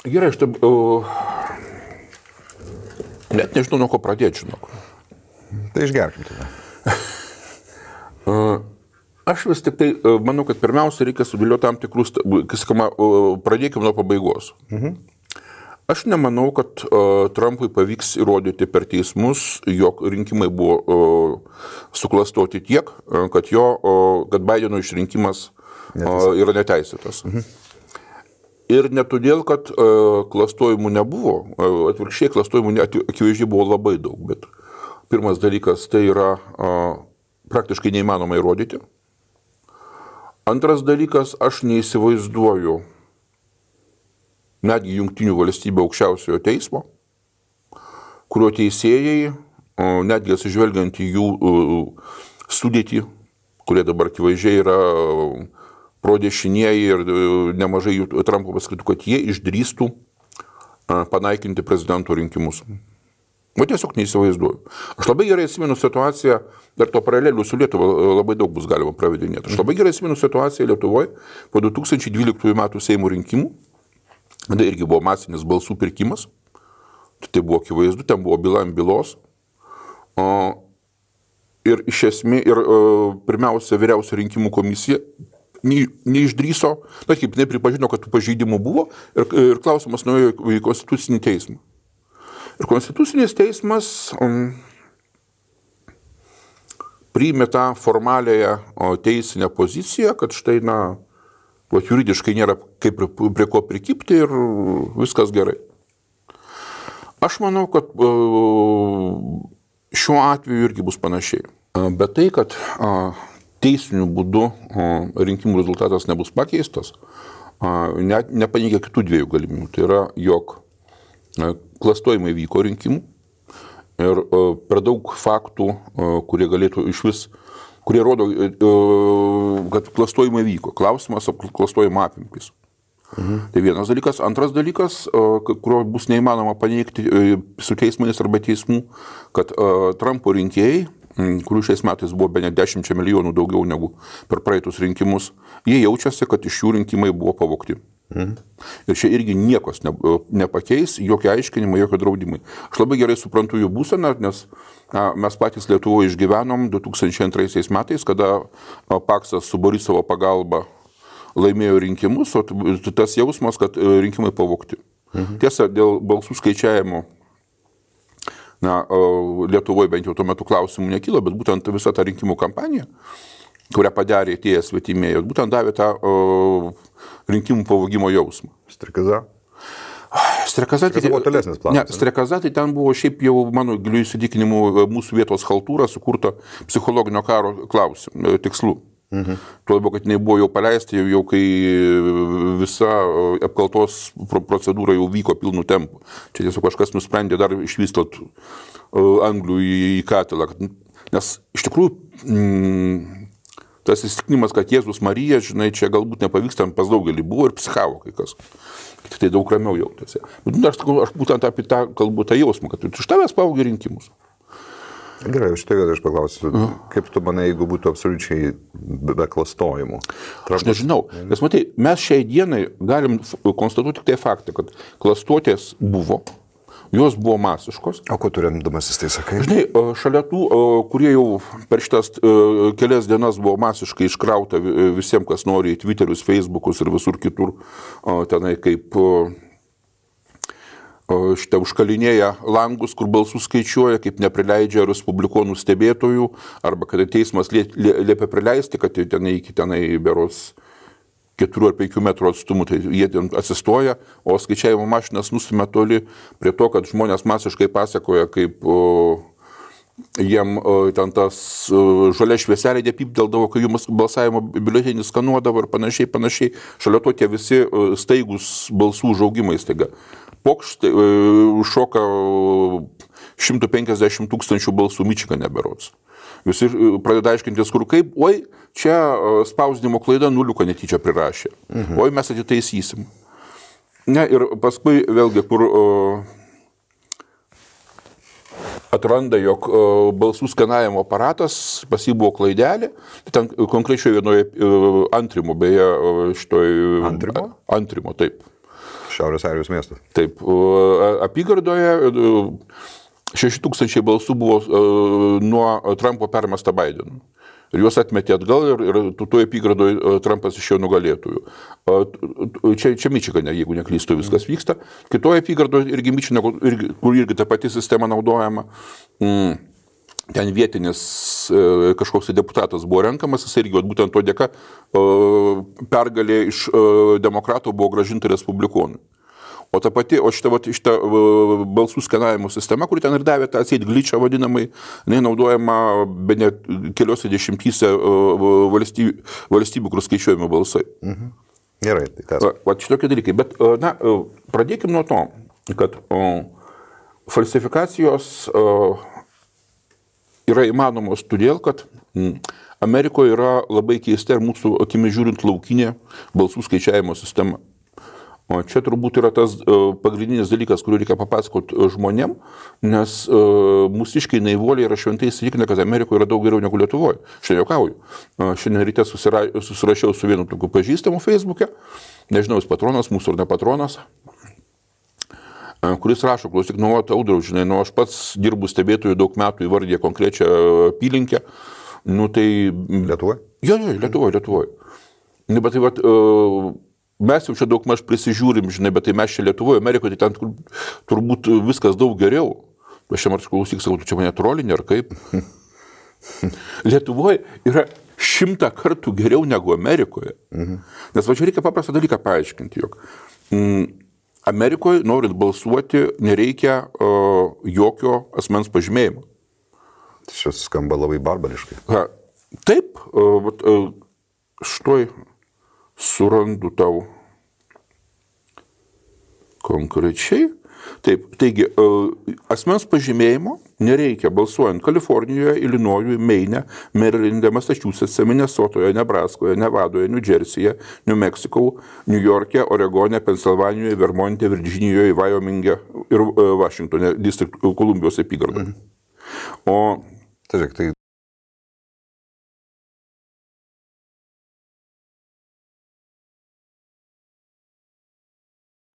Gerai, aš taip, net nežinau, nuo ko pradėti, žinok. Tai išgerkim tada. Aš vis tik tai manau, kad pirmiausia reikia sudėlioti tam tikrus, pradėkime nuo pabaigos. Aš nemanau, kad Trumpui pavyks įrodyti per teismus, jog rinkimai buvo suklastoti tiek, kad Bideno išrinkimas yra neteisėtas. Ir ne todėl, kad klastojimų nebuvo, atvirkščiai klastojimų akivaizdžiai buvo labai daug, bet pirmas dalykas tai yra praktiškai neįmanoma įrodyti. Antras dalykas, aš neįsivaizduoju netgi Jungtinių valstybių aukščiausiojo teismo, kurio teisėjai, netgi atsižvelgiant į jų sudėtį, kurie dabar akivaizdžiai yra prodešinieji ir nemažai jų Trumpo paskaitų, kad jie išdrįstų panaikinti prezidento rinkimus. O tiesiog neįsivaizduoju. Aš labai gerai atsimenu situaciją, dar to paralelių su Lietuva labai daug bus galima pravedinėti. Aš labai gerai atsimenu situaciją Lietuvoje po 2012 metų Seimo rinkimų. Tada irgi buvo masinis balsų pirkimas. Tai buvo akivaizdu, ten buvo byla ant bylos. Ir iš esmės, pirmiausia, vyriausia rinkimų komisija neišdryso, bet kaip nepripažino, kad tų pažeidimų buvo ir klausimas nuėjo į Konstitucinį teismą. Ir Konstitucinis teismas priėmė tą formaliąją teisinę poziciją, kad štai, juridiškai nėra kaip prie ko prikipti ir viskas gerai. Aš manau, kad šiuo atveju irgi bus panašiai. Bet tai, kad teisiniu būdu rinkimų rezultatas nebus pakeistas, nepaneigia kitų dviejų galimybių. Tai yra, jog klastojimai vyko rinkimų ir per daug faktų, kurie galėtų išvis, kurie rodo, kad klastojimai vyko. Klausimas apie klastojimo apimtis. Tai vienas dalykas. Antras dalykas, kurio bus neįmanoma paneigti su teismais arba teismų, kad Trumpo rinkėjai, kurių šiais metais buvo bene 10 milijonų daugiau negu per praeitus rinkimus, jie jaučiasi, kad iš jų rinkimai buvo pavogti. Ir čia irgi niekos nepakeis, jokie aiškinimai, jokie draudimai. Aš labai gerai suprantu jų būseną, nes mes patys Lietuvoje išgyvenom 2002 metais, kada Paksas su Borisovo pagalba laimėjo rinkimus, o tas jausmas, kad rinkimai pavogti. Tiesa, dėl balsų skaičiavimo Lietuvoje bent jau tuo metu klausimų nekilo, bet būtent visa ta rinkimų kampanija, kurią padarė tie svetimėjai, būtent davė tą rinkimų pavogimo jausmą. Strekaza? Strekaza buvo tolesnis planas. Ne, strekaza tai ten buvo šiaip jau, mano giliu įsitikinimu, mūsų vietos chaltūra sukurta psichologinio karo tikslų. Tuo labiau, kad jinai buvo jau paleista, jau kai visa apkaltos procedūra jau vyko pilnu tempu. Čia tiesiog kažkas nusprendė dar išvystot anglių į katilą. Nes iš tikrųjų tas įsitikinimas, kad Jėzus Marija, žinai, čia galbūt nepavyks, ten pas daugelį buvo ir psichavo kai kas. Tai daug ramiau jautėsi. Bet aš būtent apie tą kalbu tą jausmą, kad iš tavęs pavogė rinkimus. Gerai, šitą vietą aš paklausiu, kaip tu manai, jeigu būtų absoliučiai be klastojimų? Aš nežinau, nes matai, mes šiai dienai galim konstatuoti tik tai faktą, kad klastotės buvo, jos buvo masiškos. O ko tu remdamasis tai sakai? Žinai, šalia tų, kurie jau per šitas kelias dienas buvo masiškai iškrauta visiems, kas nori į Twitterius, Facebookus ir visur kitur, tenai kaip šitą užkalinėja langus, kur balsus skaičiuoja, kaip neprileidžia respublikonų stebėtojų, arba kad teismas liepia prileisti, kad tenai beros 4 ar 5 metrų atstumų, tai jie ten atsistoja, o skaičiavimo mašinas nustumia toli prie to, kad žmonės masiškai pasakoja, kaip jiem ten tas žalia švieselė depypdeldavo, kai jų balsavimo biuletenį skanuodavo ir panašiai. Šalia to tie visi staigus balsų užaugimai staiga. Pokštai šoka 150 000 balsų Mičigane berods. Visi pradeda aiškintis, kur kaip, oi, čia spausdinimo klaida nuliuką netyčia prirašė. Oi, mes atitaisysim. Ne, ir paskui vėlgi, kur atranda, jog balsų skanavimo aparatas, pas jį buvo klaidelė, tai ten konkrečioje vienoje Antrimo, beje, šitoj... Antrimo? Antrimo, taip. Šiaurės Airijos miestas. Taip, apygardoje 6000 balsų buvo nuo Trumpo permesta Bidenui. Ir juos atmetė atgal ir toje apygardoje Trumpas išėjo nugalėtojų. Čia Mičigane, jeigu neklystu, viskas vyksta. Kitoje apygardoje irgi Mičigane, kur irgi ta pati sistema naudojama, ten vietinis kažkoks deputatas buvo renkamas, jis irgi būtent to dėka pergalė iš demokratų buvo grąžinta respublikonui. O šita balsų skenavimo sistema, kuri ten ir davė tą atseit glitchą vadinamai, naudojama be net keliose dešimtyse valstybių, kur skaičiuojami balsai. Gerai, tai tas. Šitokie dalykai. Bet, pradėkim nuo to, kad falsifikacijos yra įmanomos todėl, kad Amerikoje yra labai keista ir mūsų akimis žiūrint laukinė balsų skaičiavimo sistema. O čia turbūt yra tas pagrindinis dalykas, kurį reikia papasakoti žmonėm, nes mūsiškai naivuoliai yra šventai įsitikinę, kad Amerikoje yra daug geriau negu Lietuvoje. Šiandien juokauju. Šiandien ryte susirašiau su vienu tokiu pažįstamu Facebook'e, nežinau, jis patronas mūsų ar ne patronas, kuris rašo, klausyk, Audriau, žinai, aš pats dirbu stebėtojų daug metų, įvardė konkrečią apylinkę. Tai... Lietuvoje? Jo, Lietuvoje. Bet tai mes jau čia daug maž prisižiūrim, žinai, bet tai mes čia Lietuvoje, Amerikoje, tai ten turbūt viskas daug geriau. Aš čia man klausyk, sakau, tu čia mane trolinė ar kaip? Lietuvoje yra 100 kartų geriau negu Amerikoje. Nes čia reikia paprastą dalyką paaiškinti, jog Amerikoje, norint balsuoti, nereikia jokio asmens pažymėjimo. Tai šis skamba labai barbariškai. Taip, štai surandu tau konkrečiai. Taip, taigi, asmens pažymėjimo nereikia balsuojant Kalifornijoje, Ilinojuje, Meine, Marylande, Massachusetts'e, Minnesotoje, Nebraskoje, Nevadoje, New Jersey'e, New Mexico, New York'e, Oregone, Pensilvanijoje, Vermonte, Virdžinijoje, Wyoming'e ir Vašingtone, Kolumbijos apygardoje. O tai